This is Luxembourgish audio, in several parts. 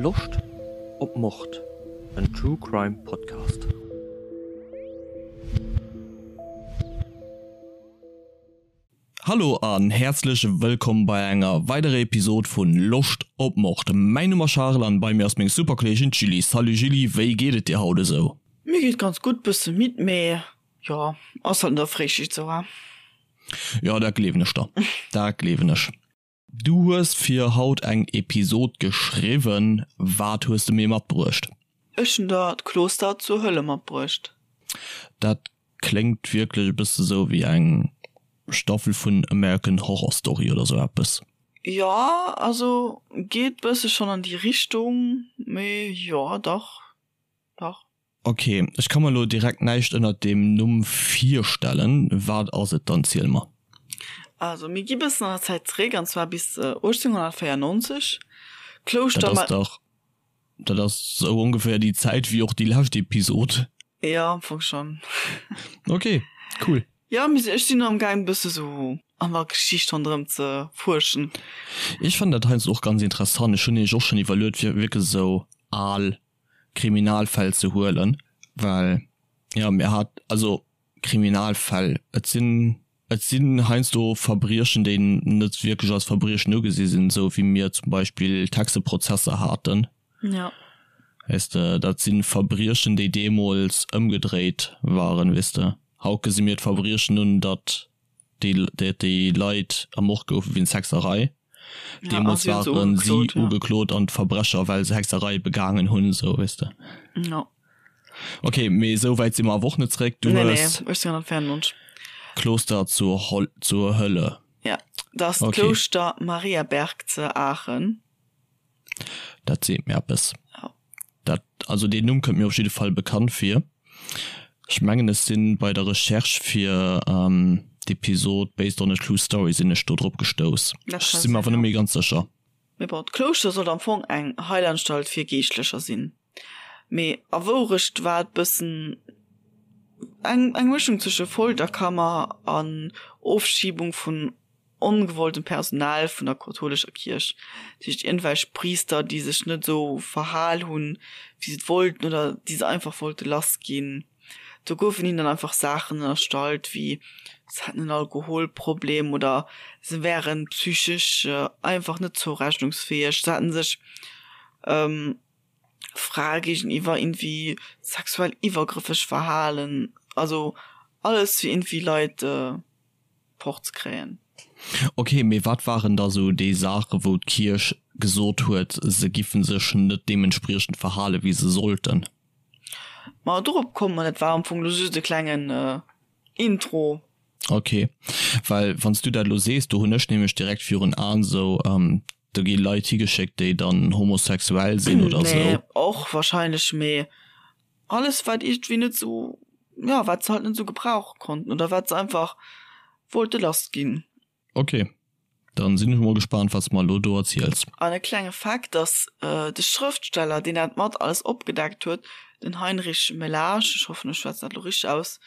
Loscht op Mord? En True Crime Podcast. Hallo an häerzlech wëllkomm bei enger weiderer Episod vun Loscht op Mord. Mäin Numm ass Charel an bei mir ass meng super Kolleegin d'Julie. Salut Julie, wéi geet et dir haut esou? Mir geet ganz gutt, bësse midd, mee jo, ass halt no der Fréischicht sou, he? Jo, dat gleewen ech der, dat gleewen ech. Du hues fir haut eng Episod geschriwwen, wat hues de mir matbruecht? Ech hunn der d'Kloster zur Hölle matbruecht. Dat kléngt wierklech e bësse sou wéi eng Staffel vun American Horror Story oder sou eppes. Jo, also geet bësse schonn an déi Richtung, mee jo, dach, dach. Ok, ech ka mer elo direkt näischt ënnert deem Numm virstellen. Wat ass et dann? Ziel mer. Also mir gi bëssen an der Zäit zeréck, an zwar bis 1894. Klouschter. Dat ass dach, dat ass sou ongeféier déi Zäit wéi och déi lescht Episod. Jo, am Fong schonn. Ok, cool. Jo, mee ech sinn am gaang bësse sou an der Geschicht ronderëm ze fuerschen. Ech fannen dat heiansdo och ganz interessant. Ech hunn nämlech och schonn iwwerluet fir wierklech esou al Kriminalfäll ze huelen, well jo mir hat also Kriminalfäll, et sinn et sinn heiansdo Verbriechen, déi net wierklech als Verbriechen ugesi sinn, esou wéi mir zum Beispill d'Hexeprozesser haten. Ja. Weess de, dat si Verbriechen, déi deemools ëmgedréit waren, weess de. Haut gesi mir d'Verbriechen un, datt déi déi Leit ermort goufe wéinst Hexerei. Deemools waren si ugeklot an d'Verbrecher well se Hexerei begaangen hunn, sou weess de. Ja. Ok, mee esou wäit si mer awer och net zeréck. Du hues 1894. Kloster zur zur Hölle. Ja, dat ass d'Klouschter Mariaberg ze Aachen. Dat seet mir eppes. Ja. Dat, also deen Numm kënnt mir op jidde Fall bekannt vir. Ech mengen ech sinn bei der Recherche fir d'Episod Based on a True Story sinn ech do drop gestouss. Ech sinn mer awer net méi ganz sécher. Mee bon, d'Klouschter sollt am Fong eng Heilanstalt fir Geeschtlecher sinn. Mee a Wourecht war et bëssen eng eng Mëschung zwësche Folterkammer an Ofschiebung vun ongewolltem Personal vun der kathoulescher Kierch, dat heescht iergendwelch Priister, déi sech net esou verhal hunn, wéi se et wollten oder déi se einfach wollte lass ginn. Do goufen hinnen dann einfach Saachen ënnerstallt, wéi se hätten en Alkoholproblem oder se wären psychesch einfach net zourechnungsfäeg, se hätten sech Frae géigeniwwer iergendwéi sexuell iwwergrëffeg verhalen, also alles fir iergendwéi Leit. fort ze kréien. Ok, mee wat waren da sou déi Saache wou d'Kierch gesot huet, se giffen sech net deementspriechend verhale wéi se sollten? Ma dorop komme mer, dat war am Fong lo just e klengen Intro. Ok, well wann s du dat elo sees, do hunn ech nämlech direkt virun Aen sou, do gi Leit higeschéckt déi dann homosexuell sinn oder sou. Nee, och wahrscheinlech, mee Alles wat iergendwéi net sou, jo, wat se halt net sou gebrauche konnten oder wat se einfach wollte lass ginn. Ok, dann sinn ech mol gespaant wat s mer elo do erziels. An e klenge Fakt, dass de Schrëftsteller deen dat mat alles opgedeckt huet, den Heinrich Melage, ech hoffen ech schwätzen dat elo richteg aus,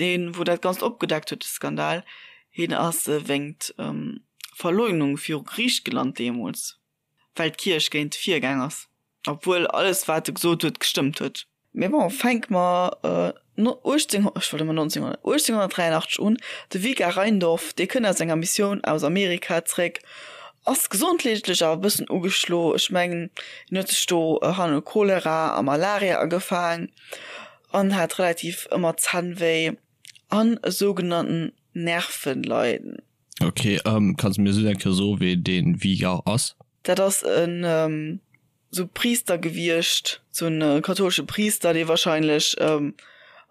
deen wou dat ganzt opgedeckt huet, de Skandal, hien ass wéingt Verleugnung viru Geriicht gelant deemools. Well d'Kierch géint virgaang ass, obwuel alles wat e gesot huet gestëmmt huet. Mee bon, fänke mer 18, ech wollt ëmmer 1900, 1883 un. De Vikar Reindorf, dee kënnt aus enger Missioun aus Amerika zréck, ass gesondheetlech awer e bëssen ugeschlo. Ech mengen, hien huet sech do hanne Cholera a Malaria agefaang an hat relativ ëmmer Zännwéi an e sougenannten Nervenleiden. Ok, kanns de mir just eng Kéier soen, wee dee Vigar ass? Dat ass en sou Priister gewiescht, sou en kathoulesche Priister, dee wahrscheinlech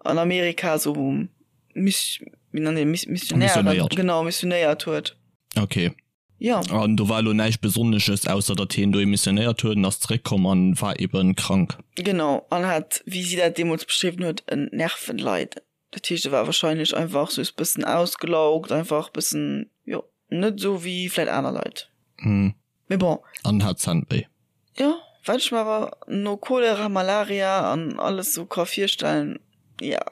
an Amerika sou Miss, wéi nennt een, Missionären, genau, missionéiert huet. Ok. Jo. An do war elo näischt Besonnesches, ausser datt hien dohi missionéiert huet an ass zeréckkomm an war eben krank. Genau, an hat, wéi si dat deemools beschriwwen huet, en Nervenleiden. Dat heescht e war wahrscheinlech einfach soos bëssen ausgelaugt, einfach bëssen, jo, net esou wéi vläit aner Leit. Hm. Mee bon. An hat Zännwéi. Jo, wat ech mer awer no Cholera, Malaria an alles sou ka virstellen, ja.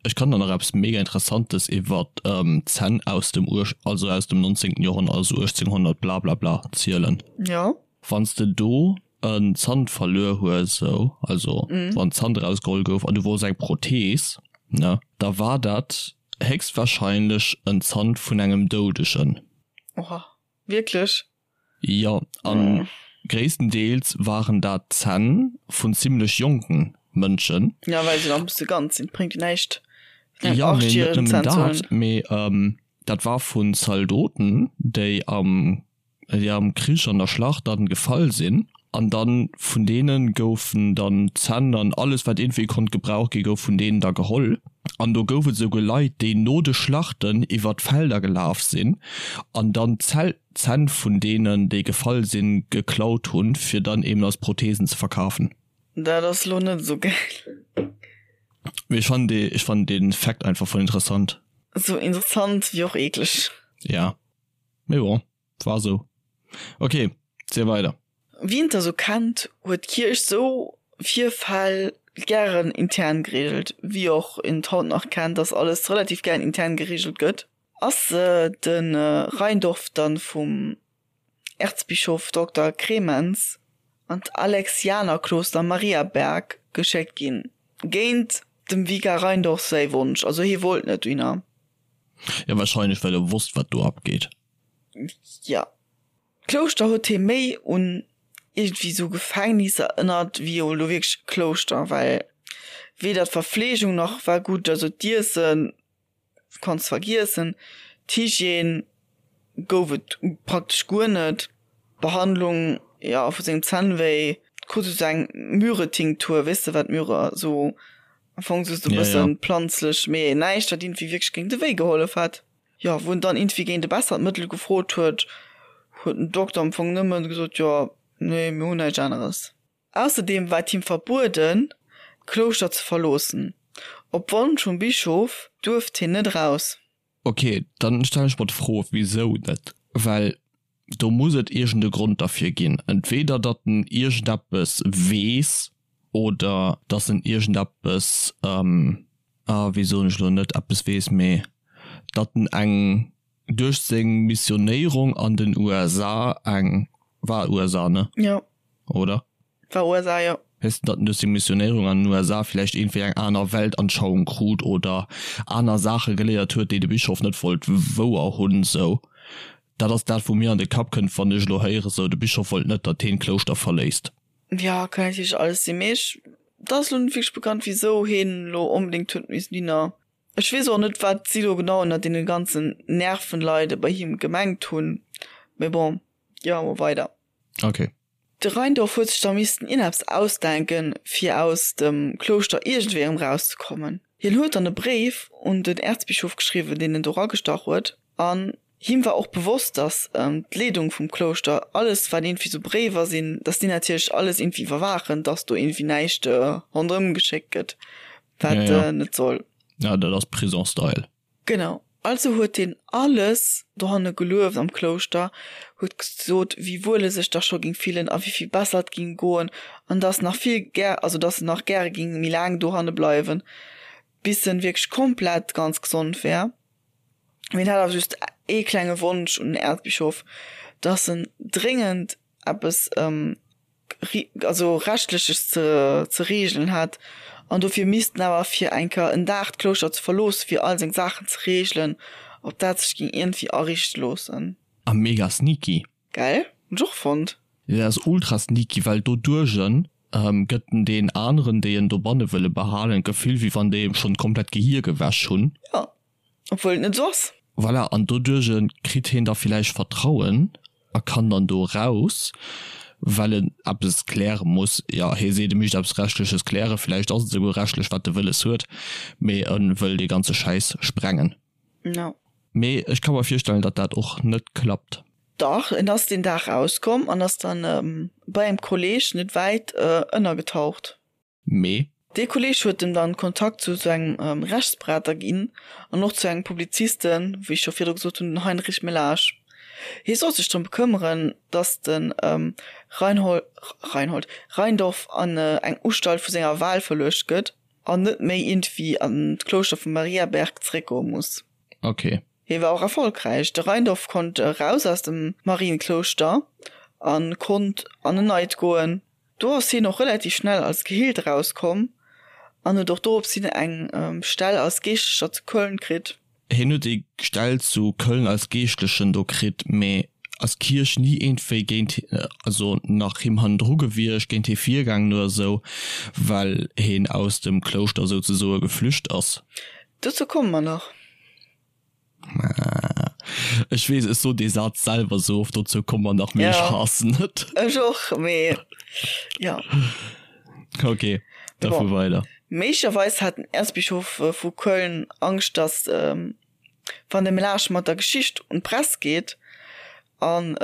Ech kann der nach eppes mega interessantes iwwert d'Zänn aus dem uech, also aus dem 19. Joerhonnert, also 1800 blablabla zielen. Jo. Wanns de do. en Zant verluer hues, sou, also wann Zant erausgeholl gouf an du wolls eng Prothees, ne, da war dat héchstwahrscheinlech en Zant vun engem Doudegen. Oha, wierklech? Jo, an gréisstendeels waren dat Zänn vun zimlech jonken Mënschen. Jo, well se nach e bësse ganz sinn, bréngt jo näischt vun engem Jo, mee net 8-järegen nëmmen Zänn ze huelen. dat, mee dat war vun Zaldoten, déi am déi am Krich an der Schlacht dann gefall sinn, an dann vun deenen goufen dann d'Zänn an alles wat iergendwéi konnt gebraucht gi gouf vun deenen da geholl. An do gouf et esouguer Leit déi no de Schlachten iwwer d'Felder gelaf sinn an dann d'Zänn vun deenen déi gefall sinn geklaut hunn fir dann eben als Prothesen ze verkafen. Dat ass lo net esou gäil. Mee ech fannen dee ech fannen dee Fact einfach voll interessant. Esou interessant wéi och eekleg. Ja. Mee bon, war sou. Ok, ziel weider. Wien et da sou kennt, huet d'Kierch sou Virfäll gären intern geregelt, wéi och een et haut nach kennt, dass alles relativ gären intern geregelt gëtt. Ass de Reindorf dann vum Erzbischof Dokter Krementz an d'Alexianerkloster Mariaberg geschéckt ginn, géint dem Vikar Reindorf säi Wonsch, also hie wollt net dohinner. Jo, wahrscheinlech well e wosst wat do abgeet. Jo. D'Klouschter huet hie méi un iergendwéi sou Gefängnis erënnert wéi elo wierklech e Klouschter, well weder d'Verfleegung nach war gutt, also d'Iessen kanns vergiessen, d'Hygiène gouf et praktesch guer net, d'Behandlung, jo, vu sengem Zännwéi, krut e sou eng Myrrhe-Tinktur, weess de wat Myrrhe sou Am Fong just e bëssen planzlech, mee näischt wat iergendwéi wierklech géint de Wéi gehollef hätt. Jo, wou en dann iergendwéi géint e bessert Mëttel gefrot huet, huet den Dokter am Fong nëmmen gesot, jo, nee, mir hunn näischt aneres. Ausserdeem war et him verbueden, d'Klouschter ze verloossen. Op Wonsch vum Bischof duerft hien net eraus. Ok, dann stellen ech mer d'Fro, wisou net? Well do muss et iergend e Grond derfir ginn. Entweder datt en iergendeppes weess oder datt en iergendeppes, ah wéi soen ech elo, net eppes weess, mee datt en eng duerch seng Missionéierung an den USA eng, war USA ne? Jo. Oder? War USA, jo. Weess de, datt en duerch seng Missionéierung an den USA vläicht iergendwéi eng aner Weltanschauung krut oder aner Saache geléiert huet, déi de Bischof net wollt wouer hunn, sou. Dat ass dat, wou mir an de Kapp kënnt, wann ech elo héiere sou, de Bischof wollt net, datt heen d'Klouschter verléisst. Jo, kann natierlech alles sinn, mee ech, et ass elo net wierklech bekannt, wisou heen elo onbedéngt huet missen hinner. Ech weess och net, wat si elo genau ënner deene ganzen Nervenleide bei him gemengt hunn, mee bon, gi mer mol weider. Ok. De Reindorf huet sech da missten ieneppes ausdenken, fir aus dem Klouschter iergendwéi erëm rauszekommen. Hien huet dann e Bréif un den Äerzbischof geschriwwen, deen en do ragestach huet, an him war och bewosst, datt d'Leedung vum Klouschter alles, wat iergendwéi sou Bréiwer sinn, datt déi natierlech alles iergendwéi iwwerwaachen, datt do iergendwéi näischt ronderëm geschéckt gëtt, wat net soll. Ja, dat ass Prison-Style. Genau, also huet hien alles dohanne gelueft am Klouschter, huet gesot, wéi wuel e sech da scho géing fillen a wéi vill besser et géing goen an dass nach vill gär, also dass en nach gäre géing méi laang dohanne bleiwen, bis en wierklech komplett ganz gesond wär. Mee en hat awer just ee klenge Wonsch un den Äerzbischof, dass en dréngend eppes also rechtleches ze ze reegelen hat an dofir misst en awer fir eng Kéier en Dag d'Klouschter ze verloossen fir all seng Saachen ze reegelen, ob dat sech géing iergendwéi ariichte loossen. A mega sneaky. Gell? Hunn ech och fonnt. Dat ass ultra sneaky, well doduerch gëtt en deen aneren, déi en dobanne wëlle behalen, d'Gefill, wéi wann déi em schonn komplett d'Gehir gewäsch hunn. Jo. Obwuel et net esou ass. Voilà, an doduerch kritt hien da villäicht Vertrauen a kann dann do eraus, well en eppes kläre muss. Jo, hie seet, e mischt eppes Rechtleches klären, villäicht ass et esouguer rechtlech, wat e wëlles huet, mee e wëll dee ganze Schäiss sprengen. No. Mee ech ka mer virstellen, datt dat och net klappt. Dach, en ass deen Dag rauskomm an ass dann bei engem Kolleg net wäit ënnergetaucht. Mee. Dee Kolleg huet em dann Kontakt zu sou engem Rechtsberater ginn an och zu engem Publizisten, wéi ech scho virdru gesot hunn, den Heinrich Melage. Hie sollt sech drëm bekëmmeren, datt de Reinhold, Reinhold, Reindorf an eng Ustalt vu senger Wahl verluecht gëtt an net méi iergendwéi an d'Klouschter vu Mariaberg zeréckgoe muss. Ok. Hie war och erfolgräich. De Reindorf konnt eraus aus dem Marienklouschter a konnt an en neit goen. Do ass hien och relativ schnell als geheelt erauskomm an huet och dorops hin eng Stell als Geeschtlecher zu Köln kritt. Hien huet déi Stell zu Köln als Geeschtlechen do kritt, mee ass d'Kierch ni iergendwéi géint, also nach him hannendru gewiescht, géint hie virgaangen oder esou, well hien aus dem Klouschter souzesoe geflücht ass. Dozou komme mer nach. Ech weess, ech sot dee Saz selwer sou oft, dozou komme mer nach, mee ech haassen et. Ech och, mee jo. Ok, da fuer weider. Méiglecherweis hat den Äerzbischof vu Köln Angscht, datt wann de Melage mat der Geschicht un d'Press geet an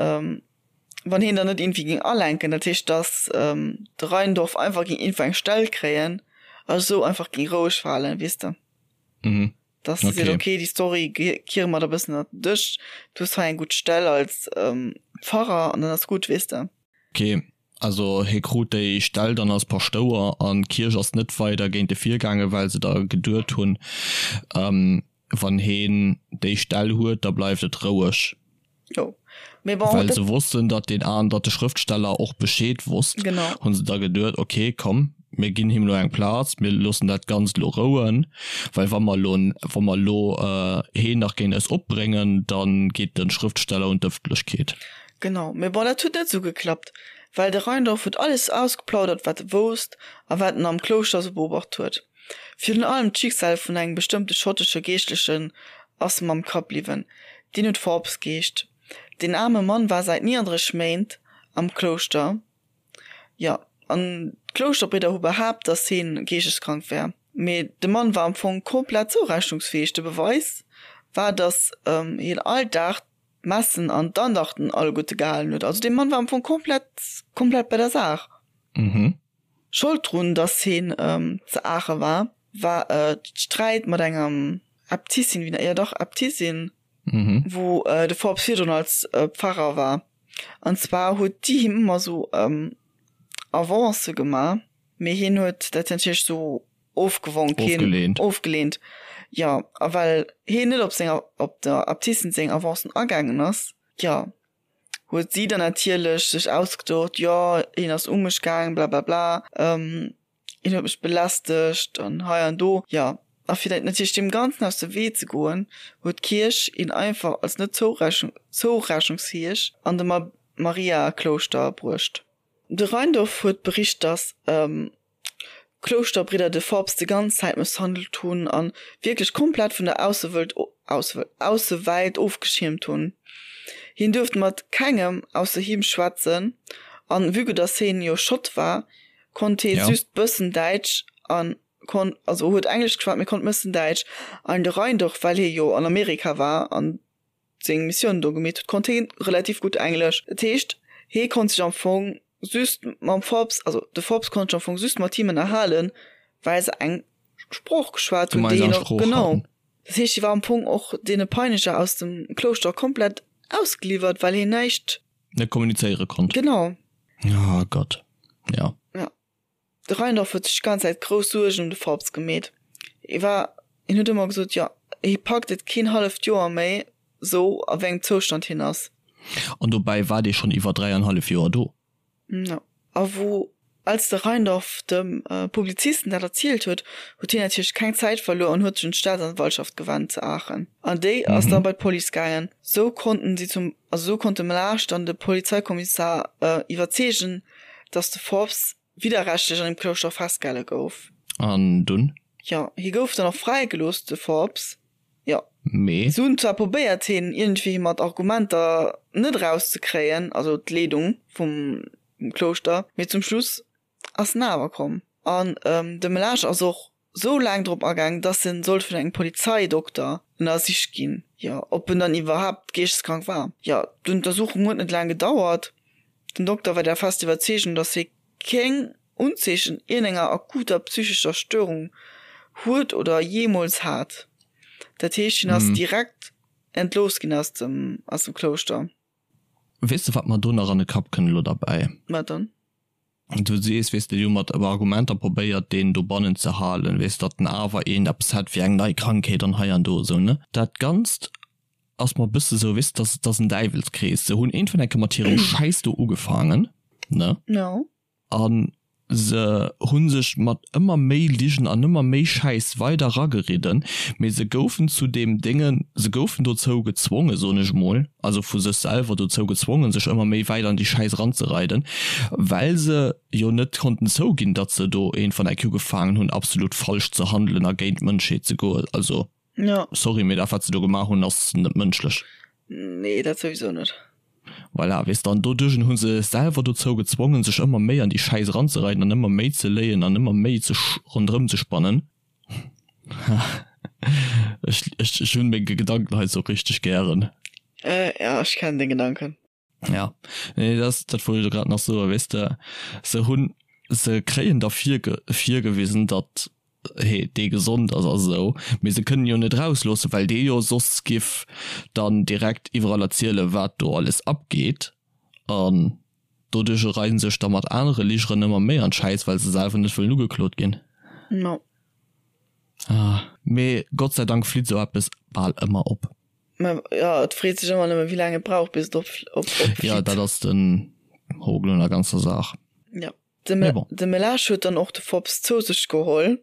wann hien dann net iergendwéi géing alenken, dat heescht, datt de Rheindorf einfach géing iergendwou eng Stell kréien a sou einfach géing roueg falen, weess de. Mhm. Dass se seet, okay, déi Story kiere mer der e bëssen ënnert den Dësch, du hues hei eng gutt Stell als Pfarrer an dann ass gutt, weess de. Okay, also hie krut déi Stell dann als Paschtouer an d'Kierch ass net weider géint e virgaangen, well se da geduet hunn, wann heen déi Stell huet, da bleift et roueg. Jo, mee bon, Well se wossten, datt deen an, datt de Schrëftsteller och Bescheed wosst, Genau. hu se da geduet, ok, komm, mir ginn him elo eng Plaz, mir loossen dat Ganzt elo rouen, well wa mer elo, wa mer elo heen nach géint eis opbréngen, da geet de Schrëftsteller un d'Ëffentlechkeet. Genau, mee bon, dat huet net esou geklappt, well de Reindorf huet alles ausgeplaudert, wat e wousst a wat en am Klouschter esou beobacht huet. Virun allem d'Schicksal vun engem bestëmmte schottesche Geeschtlechen ass em am Kapp bliwwen, deen huet Forbes geheescht. Deen aarme Mann war säit 39 Méint am Klouschter, jo, an d'Klouschterbridder hu behaapt, datt heen geeschteskrank wär. Mee de Mann war am Fong komplett zourechnungsfäeg. De Beweis war, datt hien all Dag d'Messen an d'Andachten alleguerte gehalen huet. Also dee Mann war am Fong komplett, komplett bei der Saach. Schold drun, dass heen ze Aache war, war d'Sträit mat enger Äbtissin, wéi, jo dach, Äbtissin, wou de Forbes virdrun als Pfarrer war. An zwar huet déi him ëmmer sou Avancë gemaach, mee hien huet dat natierlech sou ofgewonk, hien ofgeleent, jo. A well hien net op senger, op der Äbtissin seng Avancen agaangen ass, jo, huet si dann natierlech sech ausgedocht, jo hien ass u mech gaang, blablabla, hien huet mech belästegt an hei an do. Jo, a fir dat natierlech deem Ganzen aus dem Wee ze goen, huet d'Kierch hien einfach als net zourechnungsfäeg an de Mariaklouschter bruecht. De Reindorf huet bericht, datt D'Klouschterbridder de Forbes de ganz Zäit mësshandelt hunn a wierklech komplett vun der Aussewëlt Aussewelt ofgeschiermt hunn. Hien duerft mat kengem ausser him schwätzen an vue que dass hien jo Schott war, konnt hie just bëssen Däitsch an konnt also huet Englesch geschwat mee konnt mëssen Däitsch an de Reindorf well hie jo an Amerika war an seng Missioun do gemeet huet, konnt hie relativ gutt Englesch. Dat heescht, hie konnt sech am Fong just mam Forbes, also de Forbes konnt sech am Fong just mat him ënnerhalen, well se eng Sprooch geschwat hunn, déi hien och, genau. Dat heescht, hie war am Fong och deene Peineger aus dem Klouschter komplett ausgeliwwert, well hien näischt. Net kommunizéiere konnt. Genau. Oh Gott, ja. Ja. De Reindorf huet sech d'ganz Zäit grouss Suergen ëm de Forbes gemeet. Hie war, hien huet ëmmer gesot, jo, hie packt et keen halleft Joer méi, sou a wéi engem Zoustand hien ass. An dobäi war dee schonn iwwer dräianhallef Joer do. Jo. A wou, als de Reindorf dem Publizisten dat erzielt huet, huet hien natierlech keng Zäit verluer an huet sech un d'Staatsanwaltschaft gewennt zu Aachen. An déi ass da bei d'Police gaangen. Sou konnten si zum, also sou konnt de Melage dann de Polizeikommissar iwwerzeegen, dass de Forbes widderrechtlech an dem Klouschter festgehale gouf. An dunn? Jo, hie gouf dann och fräigelooss, de Forbes. Jo. Mee? Si hunn zwar probéiert, hien iergendwéi mat Argumenter net erauszekréien, also d'Leedung vum Klouschter, mee zum Schluss ass en awer komm. An de Melage ass och sou laang drop agaang, dass en sollt vun engem Polizeidokter ënnersicht ginn, jo, ob en dann iwwerhaapt geeschteskrank war. Jo, d'Untersuchung huet net laang gedauert. Den Dokter war der fester Iwwerzeegung, dass hie keng Unzeechen iergendenger akuter psychescher Störung huet oder jeemools hat. Dat heescht, hien ass direkt entlooss ginn aus dem, aus dem Klouschter. Weess de, wat mer do nach an de Kapp kënnt elo derbäi? Wat dann? Du sees, weess de, déi hu mat Argumenter probéiert, deen dobannen ze halen, weess, datt en awer een eppes hätt wéi eng nei Krankheet an hei an do esou, ne? Dat Ganzt ass mer e bësse sou, weess de, dat ass en Däiwelskrees. Se hunn iergendwann eng Kéier mat hirem Schäiss do ugefaangen, ne? Jo. An Se hu sech mat ëmmer méi Ligen an ëmmer méi Schäiss weider rageridden, mee se goufen zu deem Déngen, se goufen dozou gezwongen, soen ech emol, also vu sech selwer dozou gezwongen, sech ëmmer méi wäit an déi Schäiss eranzereiden, well se jo net konnten zouginn, datt se do een van eck ugefaangen hunn, absolut falsch ze handelen a géint d'Mënschheet ze goen. Also, sorry, mee dat wat se do gemaach hunn, ass net mënschlech. Nee, dat souwisou net. Voilà, weess de, an doduerch hu se sech selwer dozou gezwongen, sech ëmmer méi an déi Schäiss eranzereiden an ëmmer méi ze léien an ëmmer méi ze ronderëm ze spannen. Ech, ech, ech hunn meng Gedanken hei sou richteg gären. Äh, ja, ech kennen deng Gedanken. Ja, nee, dat, dat wollt ech elo grad nach soen, weess de, se hunn, se kréien da virge, virgewisen, datt hee dee gesond ass a sou, mee se kënnen jo net rausloossen, well dee jo soss giff dann direkt iwwerall erzielen, wat do alles abgeet an doduerch reien sech da mat anere Ligeren ëmmer méi an d'Schäiss, well se selwer net wëllen ugeklot ginn. No. Ah, mee Gott sei Dank flitt sou eppes bal ëmmer op. Mä jo, et freet sech ëmmer nëmme wéi laang et brauch bis et op opflitt. Jo, dat ass den Hokel un der ganzer Saach. Jo. De Melage huet dann och de Forbes zou sech geholl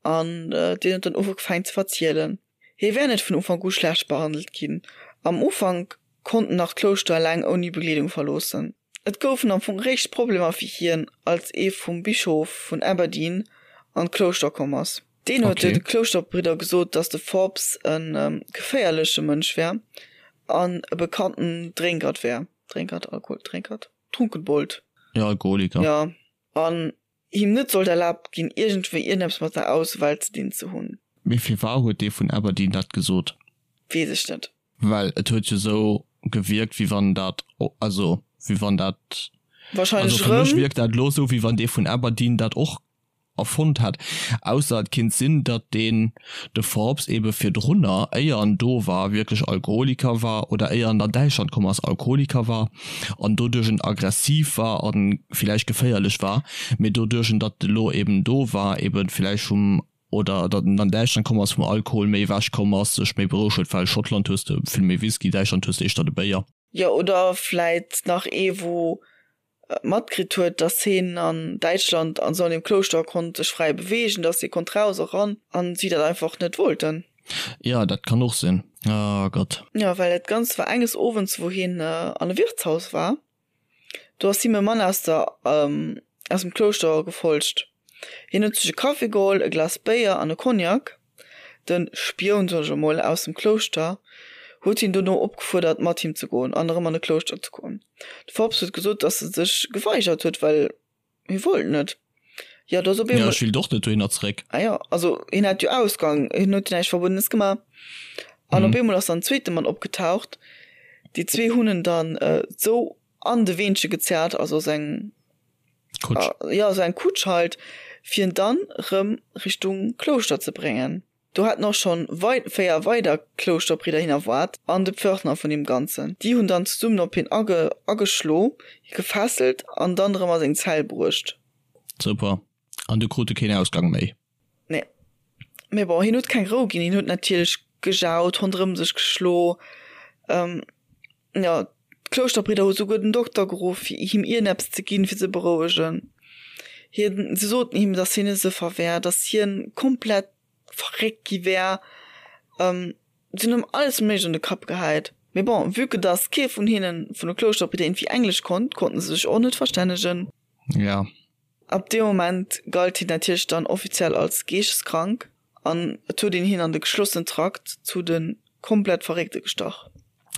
an deen huet dann ugefaangen ze verzielen. Hie wär net vun Ufank u schlecht behandelt ginn. Am Ufank konnt en nach d'Klouschter eleng ouni Begleedung verloossen. Et goufen am Fong réischt Problemer fir hien, als ee vum Bischof vun Aberdeen an d'Klouschter komm ass. Deen huet de Klouschterbridder gesot, datt de Forbes e geféierleche Mënsch wär an e bekannten Drénkert wär. Drénkert? Alkoholdrénkert? Trunkenbold. Jo, Alkoholiker. Jo, an him net sollt erlaabt ginn, iergendwéi iergendeppes mat der Aussewelt ze dinn ze hunn. Mee firwar huet dee vun Aberdeen dat gesot? Weess ech net. Well et huet jo sou gewierkt, wéi wann dat, also wéi wann dat, Wahrscheinlech also fir mech wierkt dat elo sou, wéi wann dee vun Aberdeen dat och erfonnt hätt, ausser et kinnt sinn, datt deen de Forbes ebe virdrunner, éier en do war, wierklech Alkoholiker war oder éier en an Däitschland komm ass, Alkoholiker war an doduerch en aggressiv war a villäicht geféierlech war, mee doduerch en datt elo eben do war, ebe villäicht vum, oder datt en an Däitschland komm ass, vum Alkohol méi ewech komm ass, sech méi berouegt huet, well Schottland hues de vill méi Whisky, Däitschland hues de éischter de Béier. Jo, oder vläit nach ee wou matkritt huet, dass heen an Däitschland an sou an deem Klouschter konnt sech fräi beweegen, dass hie konnt raus a ran an si dat einfach net wollten. Jo, dat kann och sinn. Oh Gott. Jo, well dat Ganzt war enges Owends, wou hien an e Wirtshaus war, do ass him e Mann aus der aus dem Klouschter gefolgt. Hien huet sech e Kaffi geholl, e Glas Béier an e Cognac. De Spioun, soen ech emol, aus dem Klouschter huet hien dono opgefuerdert, mat him ze goen an erëm an de Klouschter ze goen. De Forbes huet gesot, datt e sech geweigert huet, well hie wollt net. Jo, do ass op eemol. Jo, ech willt och net dohinner zeréck. Ah jo, also hien hat jo Ausgang, hien huet jo näischt Verbuedenes gemaach. An op eemol ass dann en zweete Mann opgetaucht. Déi zwee hunn en dann esou an de Weenche gezerrt, also sou eng Kutsch. Jo, sou eng Kutsch halt, fir en dann rëm Richtung Klouschter ze bréngen. Do haten och schonn 4 weider Klouschterbridder hien erwaart an de Pförtner vun deem Ganzen. Déi hunn dann zesummen op hien ageschlo, hie gefesselt an dann rëm a seng Zell bruecht. Super. An du krut e keen Ausgang méi? Nee. Mee bon, hien huet keng Rou ginn. Hien huet natierlech gejaut, ronderëm sech geschlo. Jo, d'Klouschterbridder hu souguer den Dokter geruff, fir him ierneppes ze ginn, fir ze berouegen. Hien, se soten him, datt hien e Sëffer wär, datt hien komplett verréckt gi wär. Se hunn him alles Méiglecht an de Kapp gehäit. Mee bon, vue que datt kee vun hinnen, vun de Klouschterbridder, iergendwéi Englesch konnt, konnten se sech och net verstännegen. Ja. Ab deem Moment galt hien natierlech dann offiziell als geeschteskrank an et huet een hien an de geschlossenen Trakt zu de komplett Verréckte gestach.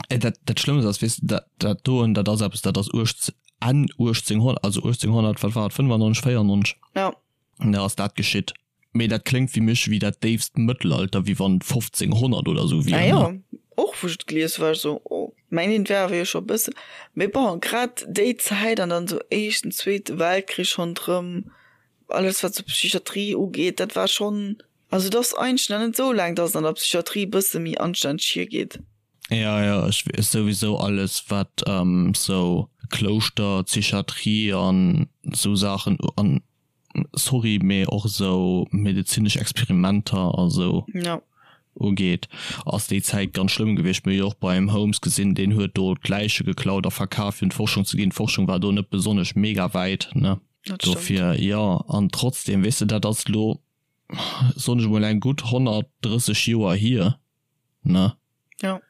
Dat, dat Schlëmmst ass, weess de, dat, dat doen, dat ass eppes, dat ass uecht, Enn 1800, also 1800, wat war et, 95, 94? Ja. Da ass dat geschitt. Mee dat kléngt fir mech wéi dat déifst Mëttelalter, wéi wann 1500 oder sou wier. Ah jo, och wou ech et gelies hu war ech sou, oh, mengen et wär awer jo scho e bëssen, mee bon, grad déi Zäit an dann sou éischten, zweete Weltkrich ronderëm, alles wat sou Psychiatrie ugeet, dat war schonn, also et ass eigentlech nach net sou laang, datt et an der Psychiatrie e bësse méi anstänneg hiergeet. Ja, ja, ech weess souwisou alles wat sou Klouschter, Psychiatrie an sou Saachen an sorry, mee och esou medezinesch Experimenter a sou ugeet, ass déi Zäit ganz schlëmm gewiescht. Mir hu jo och beim Holmes gesinn, deen huet do d'Läiche geklaut a verkaf fir un d'Forschung ze ginn. D'Forschung war do net besonnesch mega wäit, ne? Dat stëmmt. Dofir, jo, an trotzdem, weess de, dat ass elo, soen ech emol, eng gutt 130 Joer hier, ne? Ja.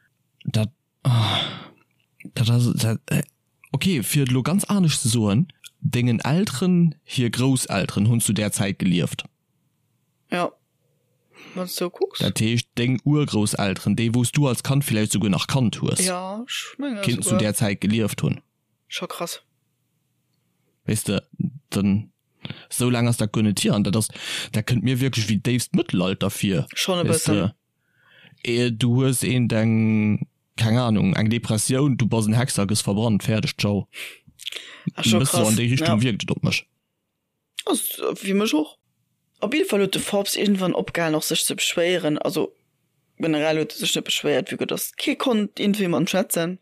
Dat, dat ass, dat, okay, fir et elo ganz anescht ze soen, Dengen Elteren hir Grousselteren hunn zu där Zäit gelieft. Ja, wann s du kucks. Dat heescht, deng Urgrousselteren, déi wou s du als Kand villäicht souguer nach kannt hues, Ja, ech menge kéinten zu souguer. där Zäit gelieft hunn. Scho krass. Weess de, dann, esou laang ass dat guer net hier. An dat ass, dat kënnt mir wierklech wéi déifst Mëttelalter vir. Schonn e bëssen. Weess de, du hues eent eng, keng Ahnung, eng Depressioun, du bass en Hexer, gëss verbrannt, fäerdeg, ciao. Ass scho E bësse sou krass, an déi Richtung ja. wierkt et op mech. Ass fir mech och. Op jidde Fall huet de Forbes iergendwann opgehalen och sech ze beschwéieren. Also generell huet e sech net beschwéiert, vue que dass kee konnt iergendwéi mat em schwätzen.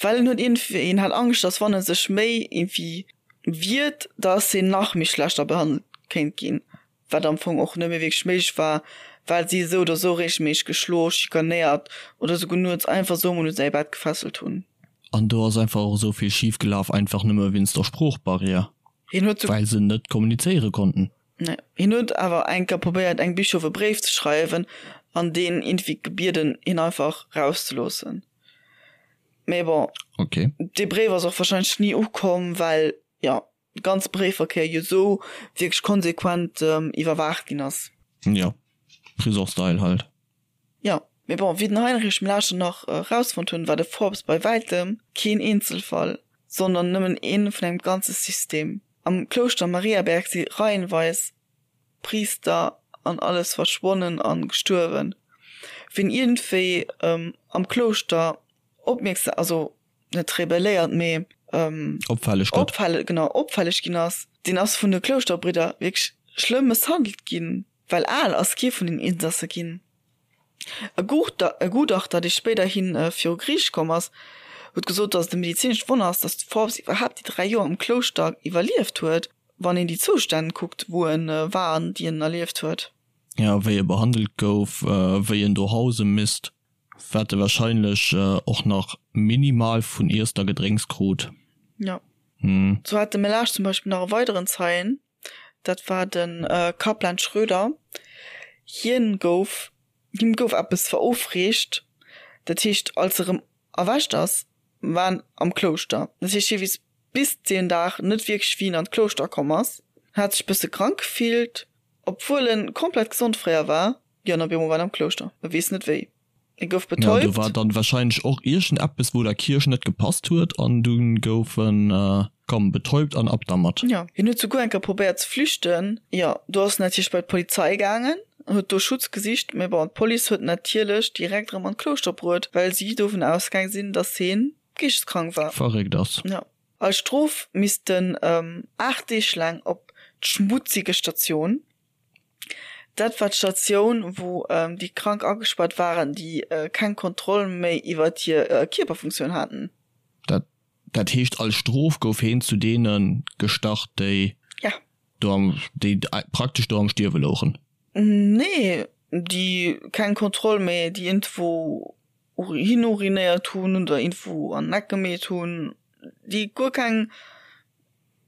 Well en huet iergendwéi, en hat Angscht, dass wann e sech méi iergendwéi wiert, dass hien nach méi schlechter behandelt kéint ginn, wat am Fong och net méi wierklech méiglech war, well si esou oder esou reegelméisseg geschlo, schikanéiert oder esouguer nuets einfach esou emol u säi Bett gefesselt hunn. An do ass einfach och esou vill schif gelaf, einfach nëmme wéinst der Sproochbarrière. Hien huet Well se net kommunizéiere konnten. Nee. Hien huet awer eng Kéier probéiert engem Bischof e Bréif ze schreiwen an deen iergendwéi gebieden hien einfach rauszeloossen. Mee bon, Okay. dee Bréif ass och warscheinlech ni ukomm, well jo de ganze Bréifverkéier jo esou wierklech konsequent iwwerwaacht ginn ass. Jo, Prison-Style halt. Jo, mee bon, wéi den Heinrich Mlaschen nach erausfonnt hunn, war de Forbes bei wäitem keen Eenzelfall, sondern nëmmen een vun engem ganze System. Am Klouschter Mariaberg si reihenweis Priister an alles verschwonnen an gestuerwen. Wien iergendwéi am Klouschter opmierksam, also net rebelléiert, mee Opfälleg gëtt. opfälleg, genau, opfälleg ginn ass, deen ass vun de Klouschterbridder wierklech schlëmm mësshandelt ginn. Well al ass kee vun den Insasse ginn. E Gutachter, dee spéiderhi viru Geriicht komm ass, huet gesot, datt et e medezinescht Wonner ass, datt d'Forbes iwwerhaapt déi 3 Joer am Klouschter iwwerlieft huet, wann een déi Zoustänn kuckt, wou e war an déi en erlieft huet. Jo, wéi e behandelt gouf, wéi en do hause misst, wat e warscheinlech och nach minimal vun Iesst a Gedrénks krut. Jo. Sou hat de Melage zum Beispill nach e weideren Zeien, Dat war de Kaplan Schröder. Hien gouf, him gouf eppes verofreecht. Dat heescht, als e rëm erwächt ass, war en am Klouschter. Dat heescht, hie weess bis deen Dag net wierklech, wéi en an d'Klouschter komm ass. En hat sech bësse krank gefillt, obwuel en komplett gesond fréier war. Jo, an op eemol war en am Klouschter. E weess net wéi. E gouf Ja, do betäubt. war dann wahrscheinlech och iergend eppes wou der Kierch net gepasst huet an dunn gouf en, komm, betäubt an ab dermat. Jo, hien huet souguer eng Kéier probéiert ze flüchten. Jo, do ass en natierlech bei d'Polizei gaangen an huet do Schutz gesicht, mee bon, d'Police huet en natierlech direkt erëm an d'Klouschter bruet, well si dovun ausgaang sinn, dass hien geeschteskrank war. Verréckt ass. Jo. Als Strof misst en 8 Deeg laang op d'schmutzige Station. Dat war d'Statioun, wou déi Krank agespaart waren, déi keng Kontroll méi iwwer hir Kierperfunktioun haten. Dat dat heescht, als Strof gouf heen zu deene gestach, déi Ja. do am, déi praktesch do am Stierwe louchen? Nee, déi keng Kontroll méi, déi iergendwou hinurinéiert hunn oder iergendwou an den Eck gemeet hunn, déi guer keng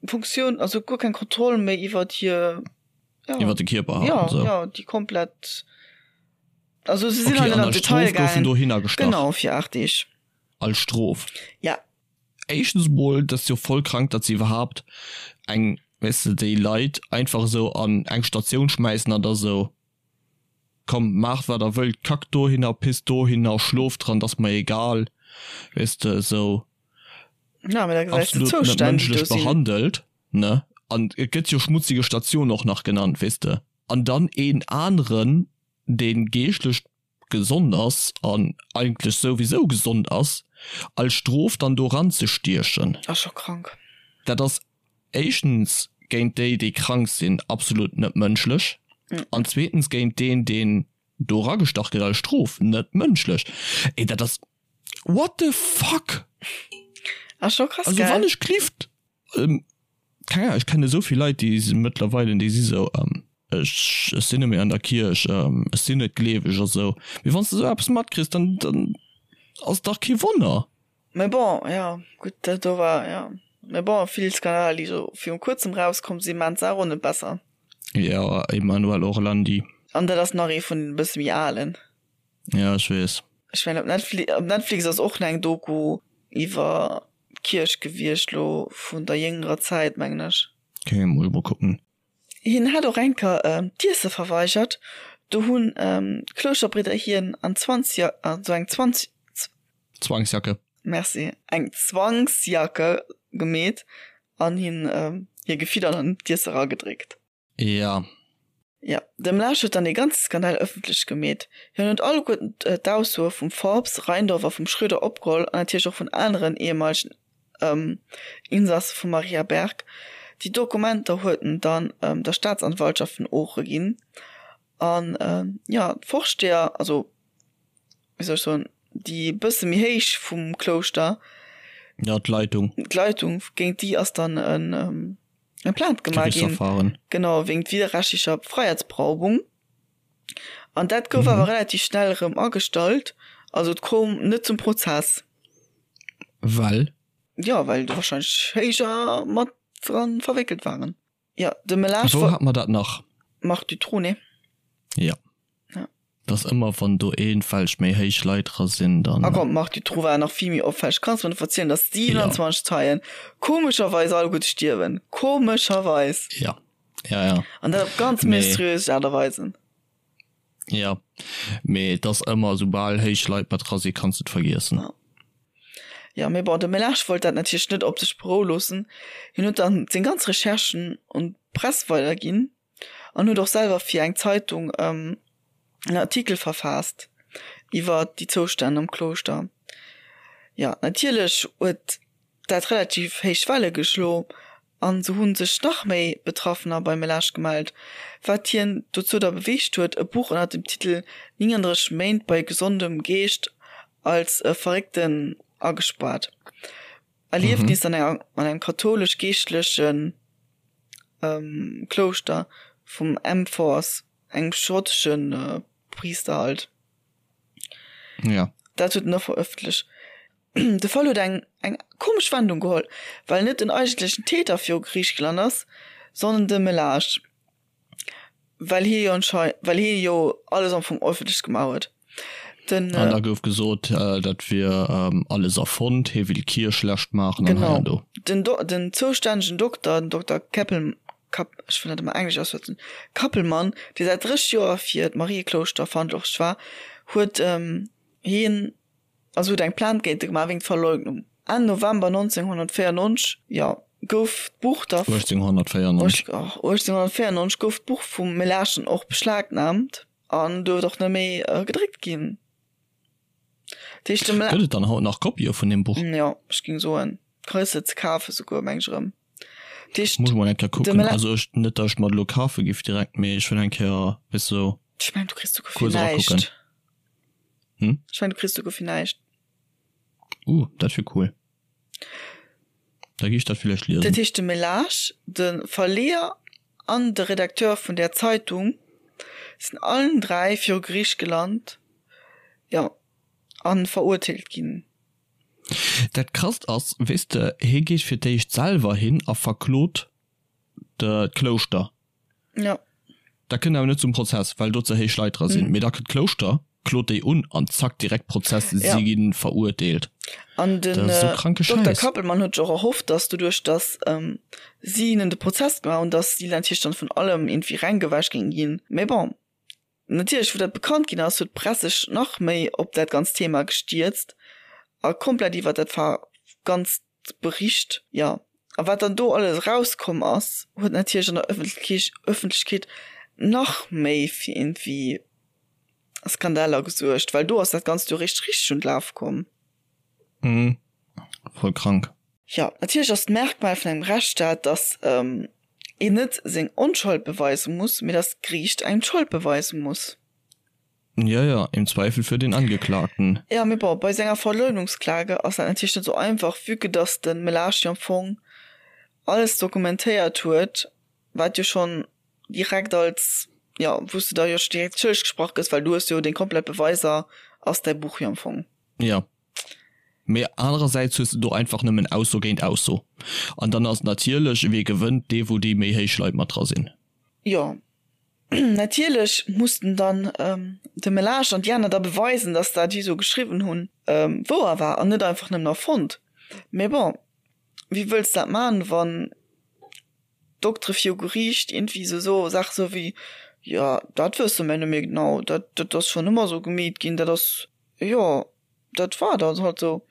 Funktioun, also guer keng Kontroll méi iwwer hir. Ja. Iwwer de Kierper ja, so. ja, déi komplett also se sinn okay, an Detail goufen dohinner gestach. Genau fir 8 Deeg. Als Strof. Ja. Éischtens mol, dat ass jo voll krank, datt se iwwerhaapt eng, weess de, déi Leit einfach esou an eng Statioun schmäissen an da sou, komm maacht wat der wëllt, kackt dohinner, pisst dohinner, schlooft dran, dat ass mer egal, weess de, esou. Ja, mä da gesäis de absolut net d'Zoustänn, déi do mënschlech sinn. behandelt, ne? An et gëtt jo schmutzige Station och nach genannt, weess de. An dann een aneren, dee geeschtlech gesond ass an eigentlech souwisou gesond ass, als Strof dann do eranzestiechen. Ass scho krank. Dat ass éischtens géint déi, déi krank sinn, absolut net mënschlech an zweetens géint deen, deen do eragestach gëtt als Strof, net mënschlech. Ey, dat ass. What the fuck? Ass scho krass, Also gell? wann ech klift, ähm, keng Ahnung, ech kenne esou vill Leit, déi si mëttlerweile, déi si sou, ähm, ech, ech sinn net méi an der Kierch, ähm, ech sinn net gleeweg a sou. Mee wann s de sou eppes matkriss, dann, dann ass dach kee Wonner. Mee bon, jo, gutt, dat do war, jo. Mä bon, vill Skandaler, déi sou viru kuerzem rauskomm sinn, maachen d'Saach och net besser. Jo, Emanuel Orlandi. An dat ass nach ee vun den e bësse méi alen. Ja, ech weess. Ech mengen op Netflix, op Netflix ass och nach eng Doku iwwer d'Kierch gewiescht, lo vun der jéngerer Zäit, mengen ech. Ok, muss ech mol kucken. Hien hat och eng Kéier d'Iesse verweigert. Do hunn d'Klouschterbridder hien an Zwanzja, an sou eng Zwanz. Zwangsjacke. Merci. Eng Zwangsjacke gemeet an hien hir gefiddert an d'Iesse eragedréckt. Ja. Jo, de Mlaasch huet dann dee ganze Skandal ëffentlech gemeet. Hien huet alleguerten d'Aussoe vum Forbes, Reindorf a vum Schröder opgeholl an natierlech och vun aneren ehemaligen Insasse vum Mariaberg. Déi Dokumenter huet en dann der Staatsanwaltschaft vun Ooche ginn. An jo, d'Vorsteher, also wéi soll ech soen, déi e bësse méi héich vum Klouschter. Jo, d'Leitung. D'Leitung, géint déi ass dann en eng Plainte gemaach ginn, genau wéingt widerrechtlicher Freiheitsberaubung. An dat gouf awer relativ schnell erëm agestallt, also et koum net zum Prozess. Well? Jo, well do wahrscheinlech héijer mat dran verwéckelt waren. Jo, de Melage. Wou hat mer dat nach? Marc Dutroux, nee? Jo. Ja. Dass ëmmer wann do eenfälleg méi héich Leit dra sinn, dann. A komm, Marc Dutroux war nach vill méi opfälleg. Kanns mer net verzielen, dass 27 Zeien komescherweis alleguerte stierwen. Komescherweis. Ja. Ja, ja. An dat op ganz mysteriös Aart a Weisen. Ja. Mee et ass ëmmer, soubal héich Leit mat dra sinn, kanns de et vergiessen. Ja. Ja, mee bon, de Melage wollt dat natierlech net op sech beroue loossen. Hien huet dann seng ganz Recherchen un d'Press weiderginn. an huet och selwer fir eng Zeitung en Artikel verfaasst iwwer déi Zoustänn am Klouschter. Jo, natierlech huet dat relativ héich Welle geschlo an sou hu sech nach méi Betraffener beim Melage gemellt, wat hien dozou da beweegt huet, e Buch ënner dem Titel 39 Méint bei gesondem Geescht als Verréckten agespaart. Erliefnis an enger an engem kathoulesch-geeschtlechen Klouschter vum Amforth, engem schottesche Priister halt. Ja. Dat huet en och verëffentlecht. De Fall huet eng eng komesch Wendung geholl, well net den eigentlechen Täter viru Geriicht gelant ass, sondern de Melage. Well hie jo anschei well hie jo alles am Fong öffentlech gemaach huet. Den, An da gouf gesot, dat wier alles erfonnt, hie will d'Kierch schlecht maachen an hei an do. Genau. Den Do den zoustännegen Dokter, den Dokter Keppel Kapp ech wëll dat ëmmer englesch ausschwätzen, Kappelmann, dee säit 30 Joer fir d'Marieklouschter verantwortlech war, huet hien Also huet eng Plainte géint e gemaach wéinst Verleugnung. Enn November 1994, jo, gouf d'Buch da. 1894. 1894 gouf d'Buch vum Melaschen och beschlagnaamt an duerft och net méi gedréckt ginn. Dat heescht, de Mela. Gëtt et dann haut nach Kopië vun deem Buch? Jo, ech géing soen, kriss se ze kafe souguer, meng ech erëm. Dat heescht, Muss ech mol eng Kéier kucken. Also ech, net datt ech mer et elo kafe giff direkt, mee ech wëll eng Kéier, weess de, sou Ech mengen, du kriss souguer fir kuerz erakucken. näischt. Hm? Ech mengen du kriss souguer fir näischt. Uh, dat wier cool. Da gi ech dat villäicht liesen. Dat heescht de Melage, de Verleeër an de Redakteur vun där Zeitung sinn allen 3 viru Geriicht gelant, jo, a verurteelt ginn. Dat Krasst ass, weess de, hie geet fir d'éischt selwer hin a verklot d'Klouschter. Ja. Dat kënnt awer net zum Prozess, well do ze héich Leit dra sinn. Mee da kënnt d'Klouschter, klot déi un an zack, direkt Prozess, si ja. ginn verurteelt. An den äh, so Dr. Kappelmann huet och erhofft, dass doduerch, dass ähm, si hinnen de Prozess gemaach hunn, dass si natierlech dann vun allem irgendwie rengewäsch géing ginn. Mee bon, natierlech, wou dat bekannt ginn ass, huet d'Press sech nach méi op dat ganzt Thema gestierzt a komplett iwwer dat ganzt Bericht, jo. A wat dann do alles erauskomm ass, huet natierlech an der Ëffentlechkeet nach méi fir iergendwéi Skandaler gesuergt, well do ass dat Ganzt jo eréischt richteg un d'Lafe komm. Mhm. Voll krank. Jo, natierlech ass d'Merkmal vun engem Rechtsstaat, datt een net seng Onschold beweise muss, mee datt d'Geriicht engem d'Schold beweise muss. Ja, ja, im Zweifel für den Angeklagten. Ja, mee bon, bei senger Verleugnungsklage ass dat natierlech net sou einfach, vue que dass de Melage jo am Fong alles dokumentéiert huet, wat jo schonn direkt als, jo, wou s de da jo scho direkt schëlleg gesprach gëss, well du hues jo deng komplett Beweiser, ass däi Buch jo am Fong. Ja. Mee anerersäits hues de do einfach nëmmen Ausso géint Ausso. An dann ass natierlech, wee gewënnt? Dee wou déi méi héich Leit mat dra sinn. Jo, natierlech mussten dann de Melage an déi aner da beweisen, datt dat déi esou geschriwwen hunn wouer war an net einfach nëmmen erfonnt. Mee bon, wéi wëlls dat man, wann d'Doktere viru Geriicht iergendwéi esou soe Saache sou wéi, jo dat wësse mer net méi genau, dat dat ass schonn ëmmer esou gemeet ginn, dat ass, jo dat war dann halt esou.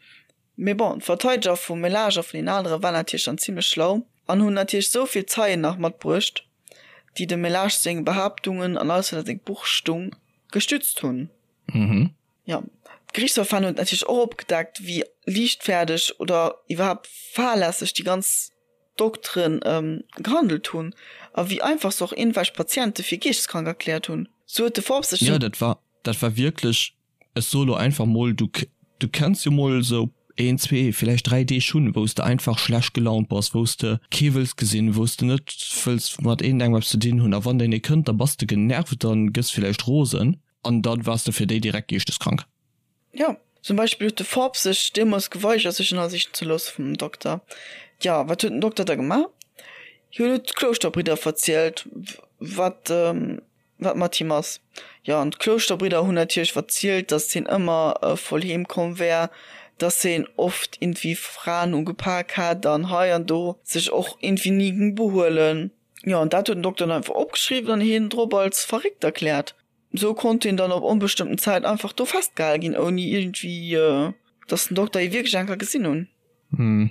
Mee bon, d'Verteideger vum Melage a vun den anere waren natierlech dann zimmlech schlau an hunn natierlech esou vill Zeien nach matbruecht, déi dem Melage seng Behaaptungen an alles wat a sengem Buch stung, gestützt hunn. Jo, d'Geriichtsverfahren huet natierlech och opgedeckt, wéi liichtfäerdeg oder iwwerhaapt fahrlässeg déi ganz Dokteren gehandelt hunn a wéi einfach se och iergendwelch Patiente fir geeschteskrank erkläert hunn. Sou huet de Forbes sech. Jo, dat war, dat war wierklech, ech soe lo einfach mol, du, du kenns jo mol esou een, zwee, villäicht dräi Deeg hunn, wou s de einfach schlecht gelaunt bass, wou s de kee wëlls gesinn, wou s de net wëlls mat iergendengem eppes ze dinn hunn a wann deen ee kënnt, da bass de genervt an gëss villäicht rosen an da waars de fir déi direkt geeschteskrank. Jo, zum Beispill huet de Forbes sech deemools geweigert, sech ënnersichen ze loosse vum Dokter. Jo, wat huet den Dokter da gemaach? Hien huet d'Klouschterbridder verzielt, wat, wat mat him ass. Jo, an d'Klouschterbridder hunn natierlech verzielt, datt hien ëmmer voll heem komm wär, datt hien oft iergendwéi Fraen ugepak hätt an hei an do sech och iergendwéi ni géing behuelen. Jo, an dat huet den Dokter dann einfach opgeschriwwen an hien drop als verréckt erkläert. Sou konnt hien dann op onbestëmmten Zäit einfach do festgehale ginn, ouni iergendwéi, dass den Dokter hie wierklech eng Kéier gesinn hunn. Hm,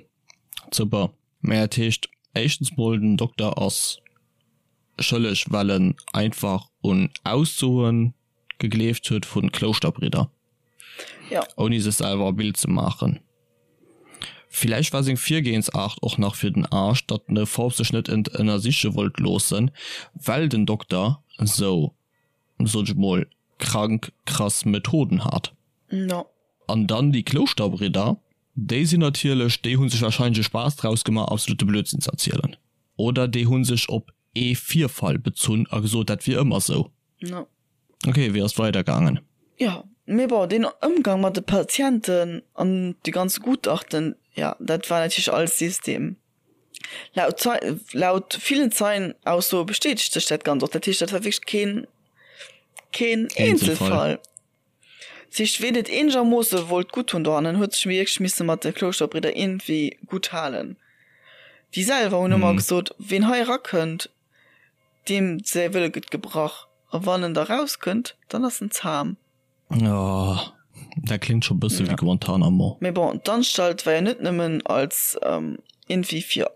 super. Mä dat heescht éischtens mol, den Dokter ass schëlleg, well en einfach un Aussoe gegleeft huet vu Klouschterbridder, Jo. ouni sech selwer e Bild ze maachen. Villäicht war seng Virgehensaart och nach fir den Aarsch, datt den Forbes sech net ënnersiche wollt loossen, well den Dokter sou, sot ech mol, krank krass Methoden hat. No. An dann déi Klouschterbridder, déi sinn natierlech, déi hu sech warscheinlech e Spaass draus gemaach, absolute Blödsinn ze erzielen. Oder déi hu sech op ee Virfall bezunn a gesot, dat wier ëmmer sou. No. Ok, wéi ass et weider gaangen? Jo, mee bon, deen Ëmgang mat de Patienten an déi ganz Gutachten, jo, dat war natierlech alles System. Laut Zei, laut villen Zeienaussoe bestätegt sech dat Ganzt och. Dat heescht, dat war wierklech keen, keen Eenzelfall. Dat heescht, ween et eenegermoosse wollt gutt hunn dohannen, huet sech wierklech misse mat de Klouschterbridder iergendwéi gutt halen. Déi selwer hunn ëmmer gesot, ween hei erakënnt, Deem säi Wëlle gëtt gebrach, a wann en da rauskënnt, dann ass en zam. Oh, dat kléngt scho bësse wéi Guantanamo. Mee bon, d'Anstalt war jo net nëmmen als iergendwéi fir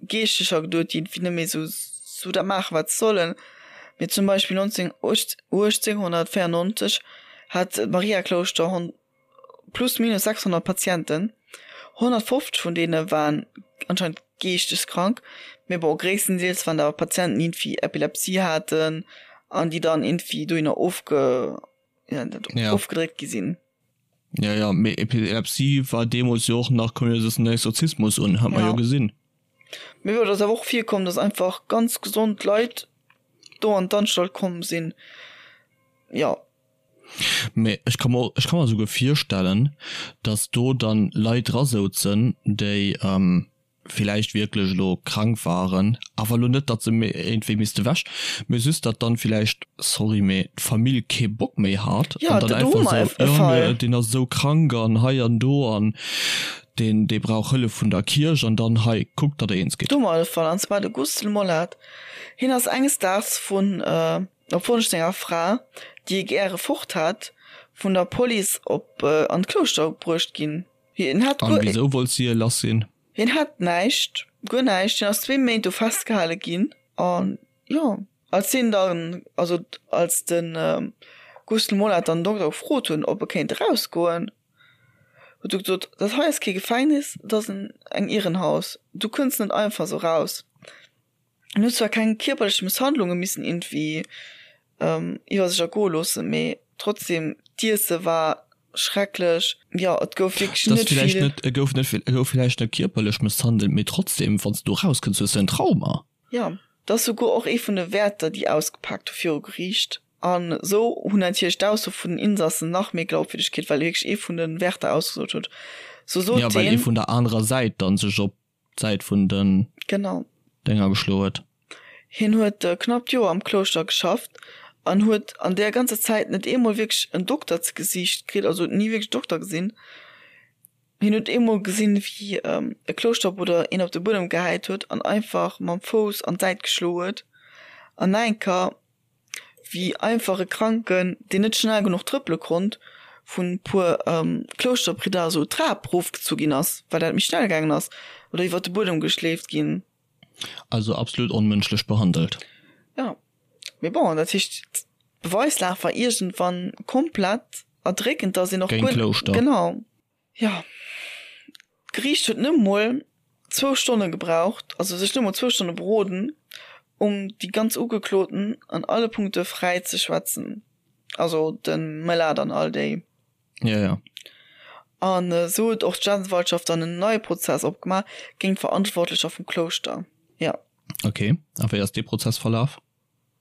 Geeschtecher geduet, déi iergendwéi net méi esou sou dat maachen, wat se sollen. Mee zum Beispill 19, 1894 hat d'Mariaklouschter plus minus 600 Patienten, 150 vun deene waren anscheinend geeschteskrank, mee bon, gréisstendeels waren dat awer Patienten, déi iergendwéi Epilepsie haten an déi dann iergendwéi dohinner ofge, wéi nennt dat, Ja. ofgedréckt gi sinn. Ja, ja, mee Epilepsie war deemools jo och nach, koum jo den Exorzismus un, hat mer Ja. jo gesinn. Mee bon, et ass awer och virkomm, dass einfach ganz gesond Leit do an d'Anstalt komm sinn, jo. Mee ech ka mer, ech ka mer esouguer virstellen, datt do dann Leit dra souzen, déi villäicht wierklech elo krank waren, awer elo net, datt se iergendwéi misste wech, mee just datt dann villäicht, sorry, mee d'Famill kee Bock méi hat an dann einfach esou, jo mee deen ass esou krank an hei an do an deen, dee brauch Hëllef vun der Kierch an dann hei, kuckt, datt der eens gitt. Do hu mer e Fall, an zwar de Gustl Mollath. Hien ass enges Daags vun. Op Wonsch senger Fra, déi e gäre fort hat, vun der Police op an d'Klouschter bruecht ginn. Hien hat An wisou wollt si e lass sinn? Hien hat näischt, guer näischt. Hien ass zwee Méint do festgehale ginn. An jo, als hien dann, also als de Gustl Mollath dann den Dokter gefrot hunn, ob e kéint erausgoen, huet e gesot, Dat hei ass kee Gefängnis, dat ass eng Irrenhaus, du kënns net einfach esou raus. En huet zwar keng kierperlech Mësshandlunge missen iergendwéi iwwer sech ergoe loossen, mee trotzdem, d'Iesse war schrecklech. Jo, et gouf wierklech net vill. Et gouf net vill, et gouf villäicht net kierperlech mësshandelt, mee trotzdem, wann s du erauskënns, hues du en Trauma. Jo, dat ass souguer och ee vun de Wäerter, déi ausgepaakt hu viru Geriicht. An esou hunn natierlech d'Ausso vun den Insassen nach méi Glaubwürdeg kritt, well wierklech ee vun de Wärter ausgesot huet. Sou sot Ja, well ee heen. vun der anerer Säit dann sech op d'Säit vun den Genau. Dénger geschloe huet. Hien huet knapp d'Joer am Klouschter geschafft an huet an där ganzer Zäit net eemol wierklech en Dokter ze Gesiicht kritt, also huet ni wierklech Dokter gesinn. Hien huet eemol gesinn, wéi e Klouschterbrudder een op de Buedem gehäit huet an einfach mam Fouss an d'Säit geschloe huet. An nach eng Kéier, wéi einfach e Kranken, deen net schnell genuch trëppele konnt, vun e puer Klouschterbridder esou d'Trap erofgezu ginn ass, well dat méi schnell gaangen ass, oder iwwer de Buedem geschleeft ginn. Also absolut onmënschlech behandelt. Jo, mee bon, dat heescht, d'Beweislag war iergendwann komplett erdréckend, dass een och Géint guer. d'Klouschter. Genau. Jo, d'Geriicht huet net mol zwou Stonne gebraucht, also sech net mol zwou Stonne beroden, um déi ganz Ugekloten an alle Punkte fräi ze schwätzen, also de Mellat an all déi. Ja, ja. An esou huet och d'Staatsanwaltschaft dann en neie Prozess opgemaach géint d'Verantwortlecher vum Klouschter. Jo. Ok, a wéi ass dee Prozess verlaf?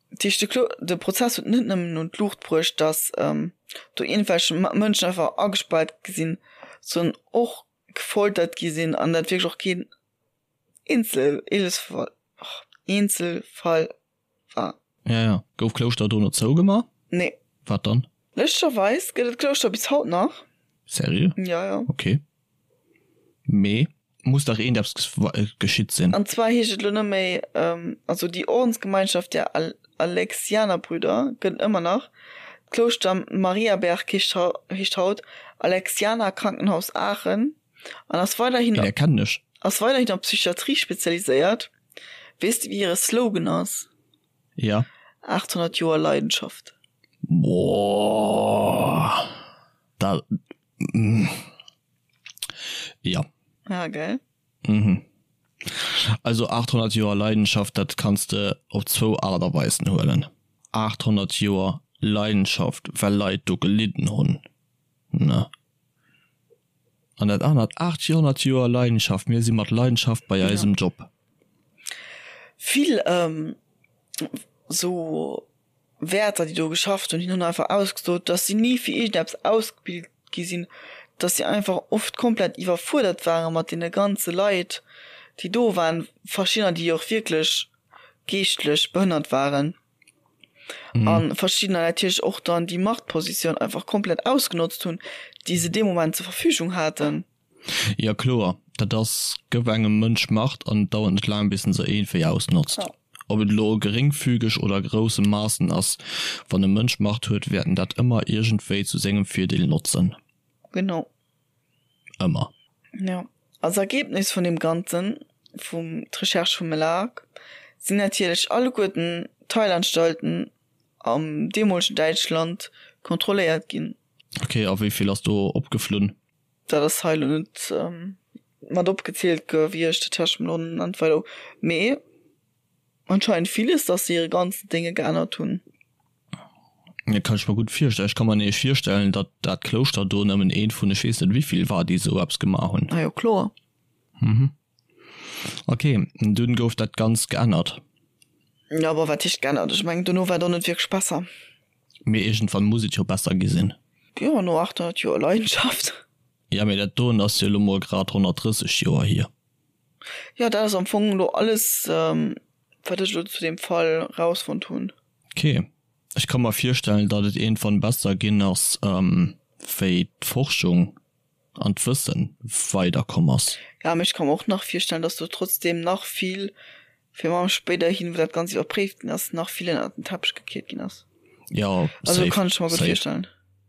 Dat heescht, de Klo de Prozess huet net nëmmen un d'Luucht bruecht, datt do iergendwelch Mënschen einfach agespaart gi sinn, sondern och gefoltert gi sinn an dat wierklech och keen Eenzel Eenzelfall war. Ja, ja. Gouf Klouschter dono zougemaach? Nee. Wat dann? Lëschtgerweis gëtt et d'Klouschter bis haut nach. Seriö? Ja, ja. Ok. Mee muss dach iergendeppes geschitt sinn. An zwar heescht et elo net méi, also déi Ordensgemeinschaft der Alexianerbrüder gëtt et ëmmer nach. D'Klouschter Mariaberg heescht haut Alexianer Krankenhaus Aachen an ass weiderhin Dee kennen ech. ass weiderhin op Psychiatrie spezialiséiert. Weess de wéi hire Slogan ass? Ja. 800 Joer Leidenschaft. Boah. Dat. Ja. Ja, gell? Mhm. Also 800 Joer Leidenschaft, dat kanns de op zwou Aart a Weisen huelen. 800 Joer Leidenschaft, well Leit do gelidden hunn, ne? An dat anert, 800 Joer Leidenschaft, mir si mat Leidenschaft bei eisem Job. Vill sou Wäerter, déi do geschafft hunn, hunn einfach ausgesot, dass si ni fir iergendeppes ausgebilt gi sinn, dass si einfach oft komplett iwwerfuerdert ware mat deene ganze Leit, déi do waren, verschiddener, déi och wierklech geeschtlech behënnert waren a verschiddener natierlech och dann déi Machtpositioun einfach komplett ausgenotzt hunn, déi se dee Moment zur Verfügung haten. Jo kloer, dat ass, gëff engem Mënsch Macht an et dauert net laang bis en se iergendwéi ausnotzt. Ob et elo geringfügeg oder a grousse Maassen ass, wann e Mënsch Macht huet, wäert en dat ëmmer iergendwéi zu sengem Virdeel notzen. Genau. Ëmmer. Jo. Als Ergebnis vun deem Ganzen, vum d'Recherche vum Melag, sinn natierlech alleguerten d'Heilanstalten am deemolegen Däitschland kontrolléiert ginn. Ok, a wéi vill ass do opgeflunn? Dat ass hei elo net mat opgezielt gewiescht, dat hat ech mer elo net weider u. Mee anscheinend villes, datt se hire ganzen Dénge geännert hunn. Dat kann ech mer gutt virstellen. Ech ka mer nämlech virstellen, datt dat Klouschter do nëmmen eent vun ech weess net wéivill war, déi esou eppes gemaach hunn. Ah jo, kloer. Mhm. Ok, dunn gouf dat Ganzt geännert. Jo, bon, wat heescht geännert? Ech mengen, dono war et och net wierklech besser. Mee iergendwann muss et jo besser gi sinn. Jo, no 800 Joer Leidenschaft. Jo, mee dat doen ass jo elo mol grad 130 Joer hier. Jo, dat ass am Fong elo alles, wat ech elo zu deem Fall rausfonnt hunn. Ok. Ech ka mer virstellen, datt et iergendwann besser ginn ass, wéi d'Forschung an d'Wëssen weider komm ass. Ja, mee ech ka mer och nach virstellen, dass do trotzdem nach vill, virun allem spéiderhin, wou dat Ganzt iwwerpréift ginn ass, nach vill ënnert den Teppech gekiert ginn ass. Jo, Also safe, kann ech mer gutt safe. virstellen.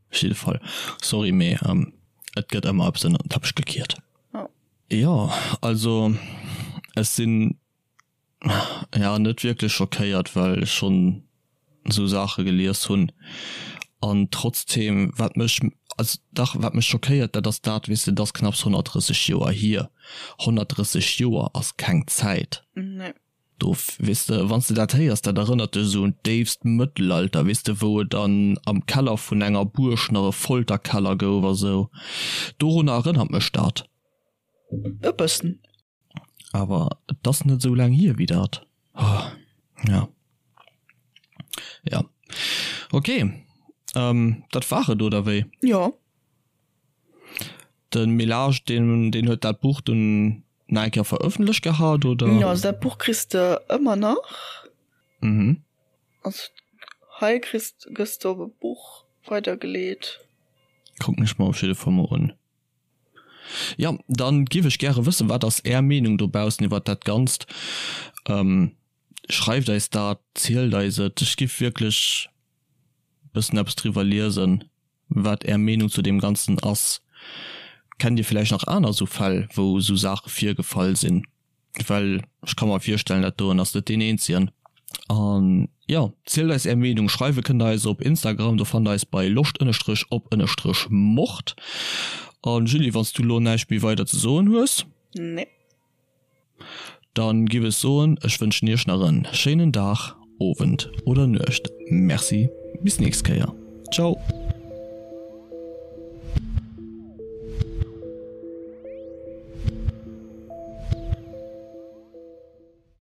Op jidde Fall. Sorry, mee et gëtt ëmmer eppes ënnert den Teppech gekiert. Ja. Jo, also ech sinn Ja, net wierklech schockéiert, well ech schonn esou Saache gelies hunn. An trotzdeem, wat mech, also dach, wat mech schockéiert, dat ass dat, weess de, et ass knapps 130 Joer hier. 130 Joer ass keng Zäit. Nee. Do, weess de, wann s de dat héiers, dat erënnert dech esou un d'déifst Mëttelalter, weess de, wou et an am Keller vun enger Buerg nach e Folterkeller gouf a sou. Dorunner erënnert mech dat. E bëssen. Awer et ass net esou laang hier wéi dat. Oh, ja. Ja. Ok, dat war et, oder wéi? Jo. De Melage, deen, deen huet dat Buch dunn nach eng Kéier verëffentlecht gehat, oder? Jo, also dat Buch kriss de ëmmer nach. Mhm. Also hei kriss, gëss de op e Buch weidergeleet. Kucken ech mer op jidde Fall mol un. Jo, dann giff ech gäre wëssen, wat ass är Meenung dobaussen iwwert dat Ganzt? Schreift eis dat, zielt eis et. Ech giff wierklech bëssen eppes driwwer liesen, wat är Meenung zu deem Ganzen ass. Kennt dir villäicht nach aner esou Fäll, wou esou Saache virgefall sinn? Well ech ka mer virstellen, dat doen ass net deen eenzegen. An jo, zielt eis är Meenung. Schreiwe kënnt der eis op Instagram, do fannt der eis bei loscht ënnerstrech op ënnerstrech mord. An Julie, wann s du lo näischt méi weider ze soen hues? Nee. Dann giff ech soen, ech wënschen iech nach en schéinen Dag, Owend oder Nuecht. Merci, bis nächst Kéier. Ciao.